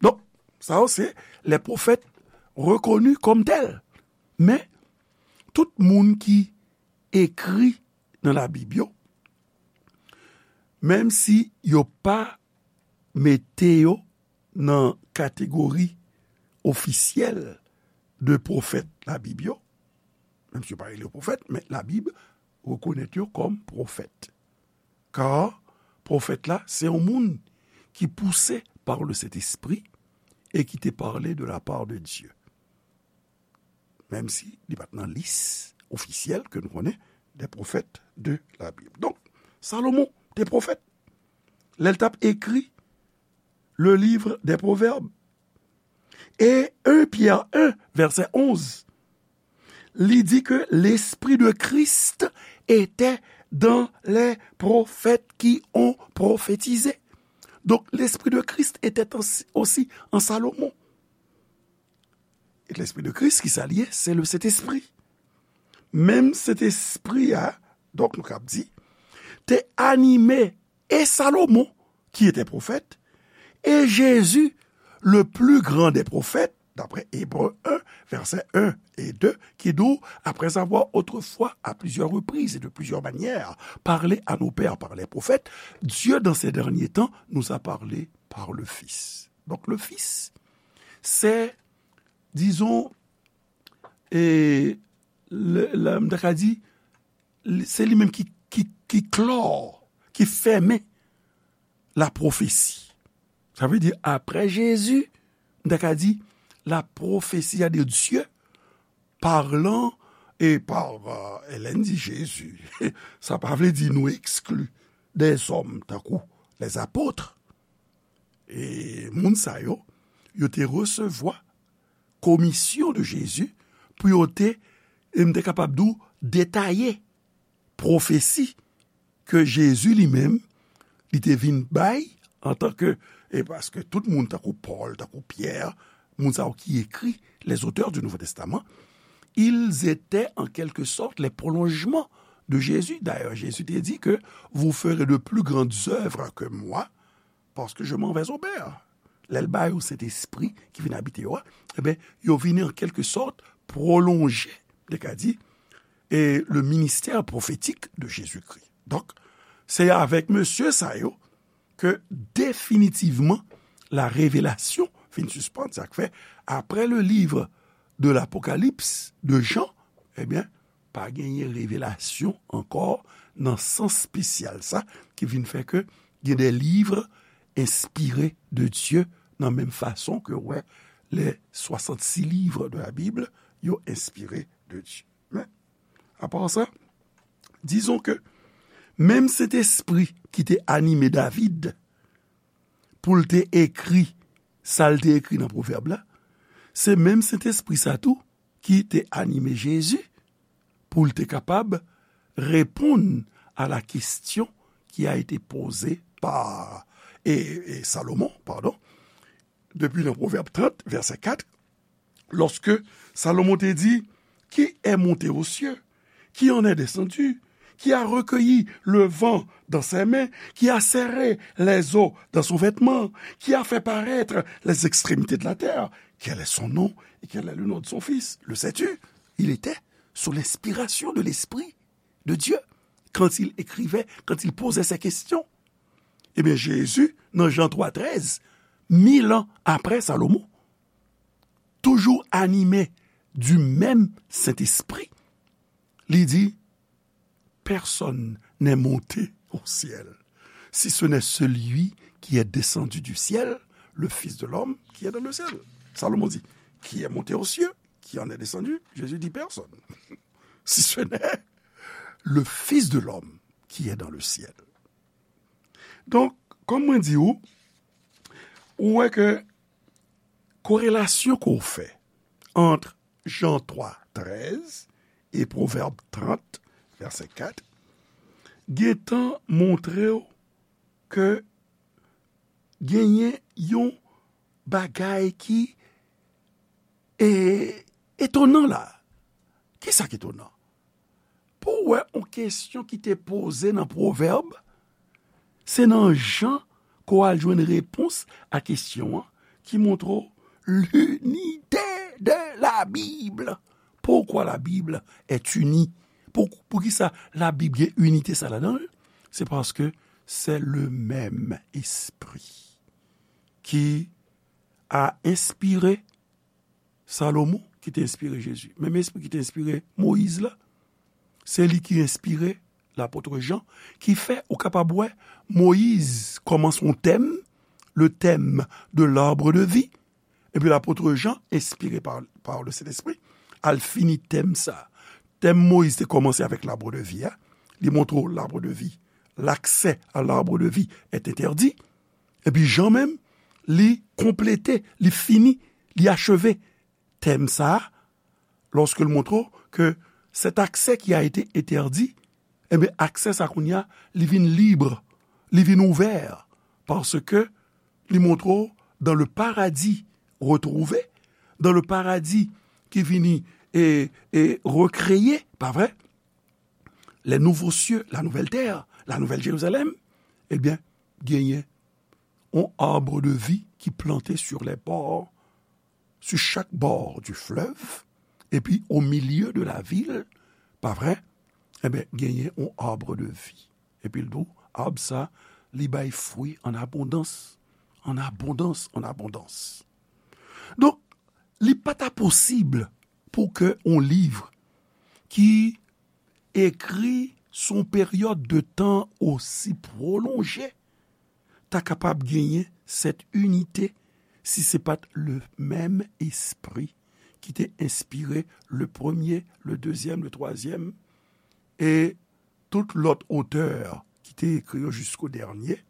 Donk, sa yo se les prophètes reconnus comme tels. Men, tout moun ki ekri nan Labib yo, menm si yo pa mete yo nan kategori ofisyèl de pwofèt Labib yo, menm si yo pa rele yo pwofèt, men Labib rekonèt yo kòm pwofèt. Kar pwofèt la, se yon moun ki pouse par le Saint-Esprit et qui te parlait de la part de Dieu. Menm si li pa t nan lis ofisyèl ke nou konnen des prophètes de la Bible. Donk, Salomon te pwofèt. Lè l t ap ekri le livre des Proverbes. E un Pierre un, vèsè onz, li di ke l'Esprit de Christ était dans les prophètes qui ont prophétisé. Donc, l'Esprit de Christ était en- aussi en Salomon. E Lespri de Kris, ki sa l ye? Se le Sentespri. Menm Sentespri a, donk nou kab di, te anime e Salomon, qui était prophète, et Jésus, le plus grand des prophètes, d'après Hébreux un, versets un et deux, qui dit, après avoir autrefois, à plusieurs reprises et de plusieurs manières, parlé à nos pères par les prophètes, Dieu, dans ces derniers temps, nous a parlé par le Fils. Donc, le Fils, c'est, disons, e, le, le, m ta ka di, li- se li menm ki, ki, ki klò, ki fèmen lapwofesi. Sa vle di, apre Jezi, m ta ka di, la prophétie de Dieu parlant et par, euh, Hélène di Jezi. Sa pa vle di nou ekskli dèzòm tankou lèzapot. E moun sa yo, yo te resevwa komisyon de Jezi pou yo te, e m te kapab di w, detaye pwofesi ke Jezi li menm, li te vin bay antanke, e paske tout moun tankou Pòl, tankou Pyè, moun sa yo ki ekri, les auteurs du Nouveau Testament, ils étaient en quelque sorte les prolongements de Jésus. D'ailleurs, Jésus te di ke vous ferez de plus grandes œuvres que moi, parce que je m'en vais au Père. Lè l ba yo Sentespri ki vin abite yo a, eben, yo vini an kèlke sòt pwolonje, m te ka di, e le ministère prophétique de Jésus-Christ. Donk, se avèk mesye sa yo ke definitivman la revelasyon fin sispann. Sa k fè, apre le livre de l'Apocalypse de Jean, ebyen, pa genyen revelasyon ankò nan sans espesyal sa, ki vin fè ke gen de livres inspirés de Dieu, nan menm fason ke, wè, les soixante-six livres de la Bible, yo enspire de Dye. Men, apa sa, dizon ke menm Sentespri ki te anime David pou l te ekri sa l te ekri nan Pwovèb la, se menm Sentespri sa tou ki te anime Jezi pou l te kapab reponn a la kesyon ki a ete poze pa, e, e Salomon, padon, depi nan Pwovèb trant, vèsè kat, lorsque Salomon te di, qui est monté aux cieux, qui en est descendu, qui a recueilli le vent dans ses mains, qui a serré les eaux dans son vêtement, qui a fait paraître les extrémités de la terre. Quel est son nom et quel est le nom de son fils? Le sais-tu? Il était sous l'inspiration de l'Esprit de Dieu quand il écrivait, quand il posait ces questions. Ebyen, Jezi, nan Jan twa trèz, mil an apre Salomon, toujou anime du menm Sentespri, li di, personne n'est monté au ciel, si ce n'est celui qui est descendu du ciel, le Fils de l'homme qui est dans le ciel. Salomon dit, qui est monté aux cieux, qui en est descendu? Jésus dit, personne. Si ce n'est le Fils de l'homme qui est dans le ciel. Donk, kòm mwen di ou, ou wè ke korelasyon ke w fè ant Jan twa trèz e Pwovèb trant, vèsè kat, gentan montre w ke genyen yon bagay ki, e, etonan la. Kisa k etonan? Pou w wè yon kesyon ki te poze nan Pwovèb, se nan Jan ke w al jwenn repons a kesyon an, ki montre w l'unité de la Bible. Pourquoi la Bible est unie? Pou, poukisa Labib gen inite sa ladan l? Se paske c'est le même esprit qui a inspiré Salomon, ki te enspire Jezi. Menm espri ki te enspire Moyiz la, Se li ki enspire lapot Jan, ki fè ou kapab wè Moyiz kòmanse yon tèm, le thème de l'arbre de vie, epi lapot Jan, enspire pa, pa le Sentespri, al fini tèm sa. Tèm Moyiz te kòmanse avèk l'arbre de vie a, li montre w l'arbre de vie, l'accès à l'arbre de vie est interdit. Epi Jan menm, li konplete, li fini, li acheve tèm sa a, lòske l montre w ke cet accès qui a été interdit, enben, aksè sa kounye a, li vin lib, li vin ouvè, paske li montre w dans le paradis retrouvé, dans le paradis ki vini e, e rekreye, pa vre? Les nouveaux cieux, la nouvelle terre, la nouvelle Jérusalem, ebyen, genyen yon arbre de vie ki plante sur les bords, sur chaque bord du fleuve, epi au milieu de la ville, pa vre? Enben, genyen yon arbre de vie. Epi l di w, ab sa, li bay fwi an abondans, an abondans, an abondans. Donk, li pa ta posib pou ke yon liv ki ekri sou yon peryòd de tan osi pwolonje ta kapab genyen cette unité si se pa t le menm espri ki te enspire le premye, le dezyèm, le twazyèm, e tout lòt otè ki te ekri yo jisko dènye,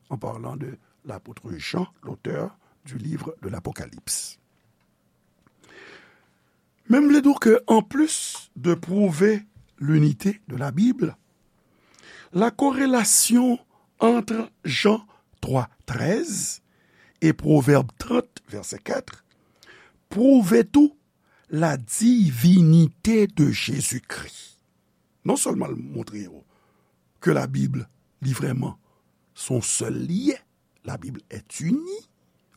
en parlant de l'apôtre Jean, l'auteur du livre de l'Apocalypse. Men m vle di w ke, anplis de pwouve linite de la Bib, la korelasyon ant Jan twa trèz e Pwovèb trant, vèsè kat, pwouve tou la divinite de Jezikri. Non sèlman l montre yo ke Labib, li vrèman, se yon sèl li ye, la Bible est unie,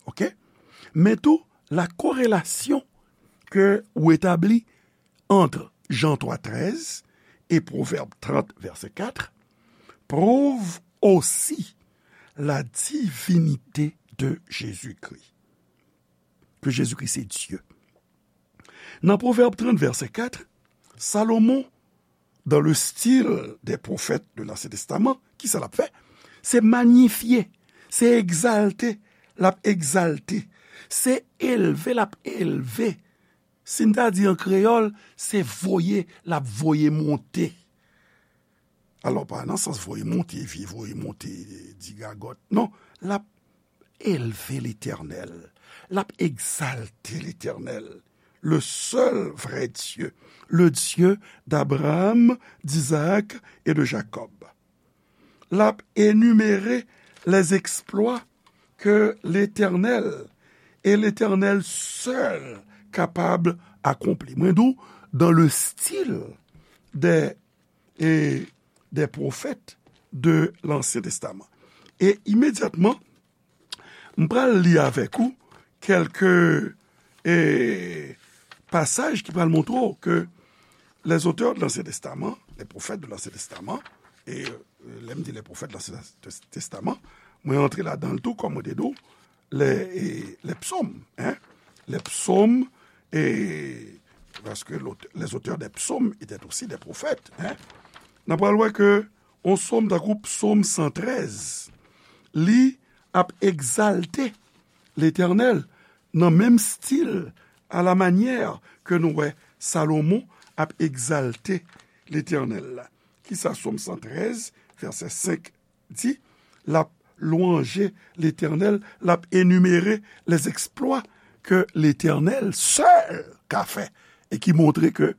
ok? Men tou, la korelasyon ke ou etabli ant Jan twa trèz e Pwovèb trant, vèsè kat, prouve aussi la divinité de Jésus-Christ. Ke Jezikri se Dye. Nan Pwovèb trant, vèsè kat, Salomon, dans le style des prophètes de l'Ancien Testament, kisa l ap fè? Se manyifye, se egzalte, l ap egzalte, se elve, l ap elve. Si n ta di an kreyòl, se voye, l ap voye monte. Alò, pa nan sans voye monte, vye voye monte, digagòt. Non, l ap elve Letènèl, l ap egzalte Letènèl, le seul vrai Dieu, le Dieu d'Abraham, d'Isaac et de Jacob. L ap enimere les exploits que l'Éternel et l'Éternel seul capable accomplir. Mwen di w, dans le style des, et des prophètes de l'Ancien Testament. E imedyatman, m pral li avèk ou kèlke, e, pasaj ki pral montre w ke les auteurs de l'Ancien Testament, les prophètes de l'Ancien Testament, e, e, lè m di les prophètes de l'Ancien Tes-, Testament, mwen antre ladan l tou, kòm mwen te di w, les, e, les psaumes, hein, les psaumes, e, parce que l'aute-, les auteurs des psaumes étaient aussi des prophètes, hein. N ap pral wè ke yon sòm tankou Psaume cent treize, li ap egzalte Letènèl nan menm stil, à la manière ke nou wè Salomon ap egzalte Letènèl la. Kisa Psaume cent treize, vèsè cinq di? L ap lwanje Letènèl, l ap enimere les exploits que l'Éternel seul ka fè, e ki montre ke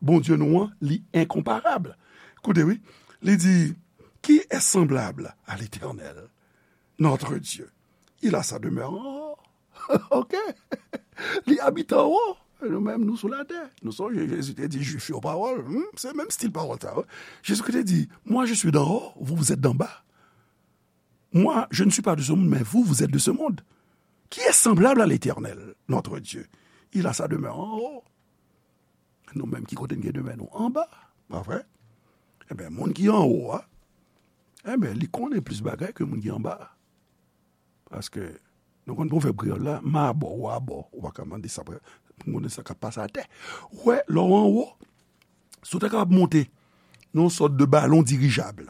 Bondye nou an, li enkonparab. Koute, wi, li di, qui est semblable à l'Éternel, notre Dieu? Il a sa demeure en haut. Ok? Li abite anwo. E nou menm, nou sou latè. Nou sonje, Jezi te di Jwif yo pawòl. Hmm? Se menm stil pawòl sa, wi. Jezikri te di, moi, je suis d'en haut, vous, vous êtes d'en bas. Moi, je ne suis pas de ce monde, mais vous, vous êtes de ce monde. Qui est semblable à l'Éternel, notre Dieu? Il a sa demeure en haut. Nou menm, ki kote n gen demè nou? Anba, pa vre? Enben, moun ki anwo a, enben, li konnen plis bagay ke moun ki anba a. Paske, nou konn pwovèb kreyòl la, m abò, ou abò, ou pa ka mande sa, pou konnen sa k ap pase atè. Ou wè, lè w anwo, si w ta kapab monte yon sòt de balon dirijab.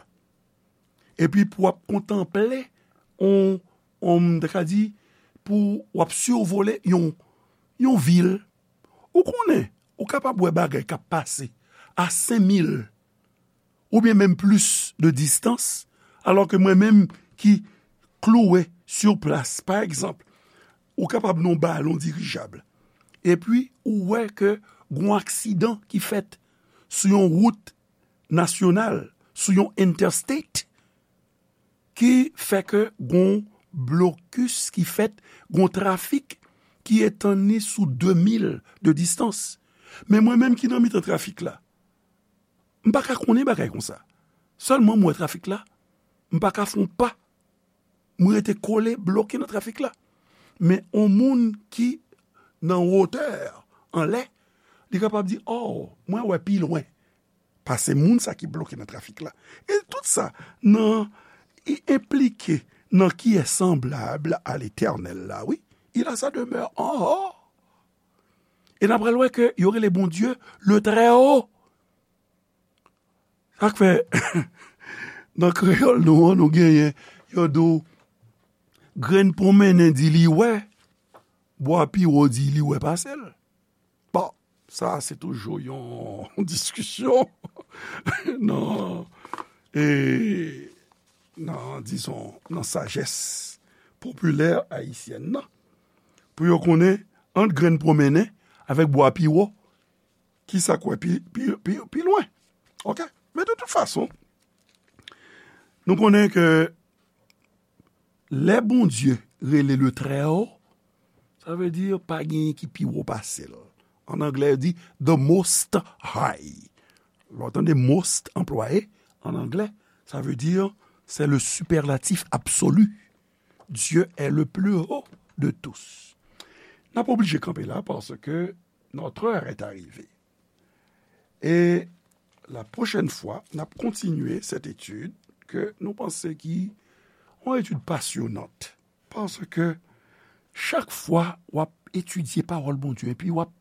Epi pou w ap kontanple, on, on, m ta ka di, pou w ap sivole yon, yon vil. Ou konnen, ou kapab wè bagay k ap pase a senk mil oubyen menm plis de distans, alò ke mwen menm ki klouwe sou plas, pa egzanp, ou kapab nan yon balon dirijab, epi ou wè ke gon aksidan ki fèt sou yon wout nasyonal, sou yon interstate, ki fè ke gon blokis ki fèt, gon trafik ki etann li sou de mil de distans. Men mwen menm ki nan mitan trafik la, m pa ka konnen bagay konsa. Sèlman m wè trafik la, m pa ka fè yon pa. M rete kole, bloke nan trafik la. Men yon moun ki nan wotè, anlè, li kapab di, "Oh, mwen wè pi lwen pase moun sa ki bloke nan trafik la." E tout sa, nan, i enplike nan qui est semblable à l'Éternel la, wi. Il a sa demeure en haut. E n ap pral wè ke yo rele Bondye le Très Haut. Sa k fè, nan kreyòl nou an, nou genyen, yo di w, grenn pwonmennen di li wè, bwa pi wo di li wè pase l. Bon, sa se toujou yon diskisyon nan, e, nan, dizon, nan sajès popilè ayisyèn nan. Pou yo konnen, ant grenn pwonmennen avèk bwa pi wo, ki sa k wè pi, pi, pi, pi lwen. Oke? Men de tout fason, nou konnen ke lè Bondye rele le Très Haut, sa vle di pa genyen ki pi wo pase l. An anglè, yo di the Most High. Lè w tande most anplwaye an anglè, sa vle di c'est le superlatif absolu. Dieu est le plus haut de tous. N ap oblije kanpe la paske notre heure est arrivée. E la pwochèn fwa, n ap kontinye cette étude ke nou panse ki yon etid pasyonant. Paske chak fwa w ap etidye pawòl Bondye, epi w ap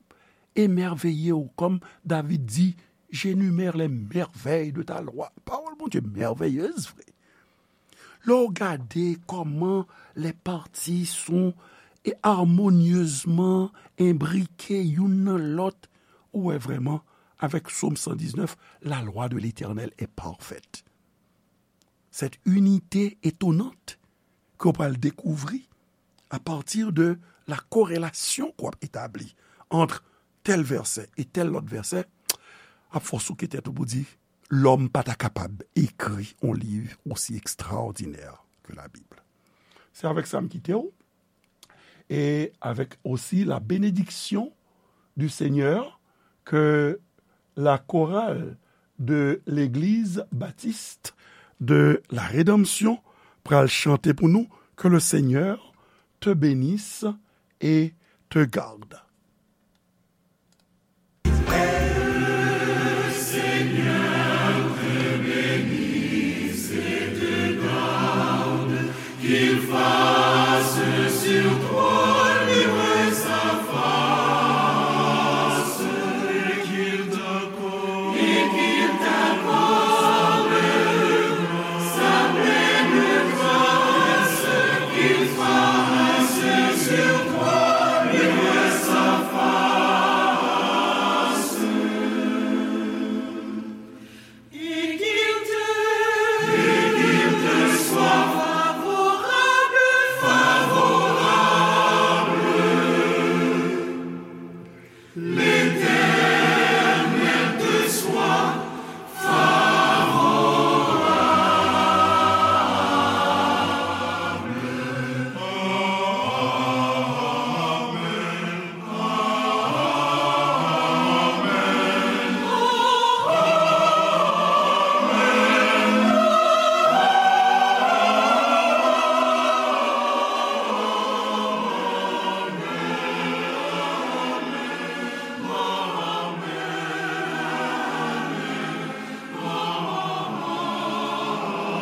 emèveye w, kòm David di, j'énumère les merveilles de ta loi. Pawòl Bondye mèveyez vre. Lè w gade kòman les parties sont harmonieusement imbriquées youn nan lòt, ou wè vrèman, avèk Sòm san diznèf, la loi de l'Éternel est parfaite. Cette unité étonnante ke w pral dekouvri à partir de la corrélation ke w ap etabli entre tel vèsè e tel lòt vèsè, ap fè w souke tèt ou pou di, lòm pa ta kapab ekri yon liv osi ekstraòdinè ke Labib. Se avèk sa m kite w, et avec aussi la bénédiction du Seigneur que la chorale de l'Église Baptiste de la Rédemption pral chante pour nous. Que le Seigneur te bénisse et te garde.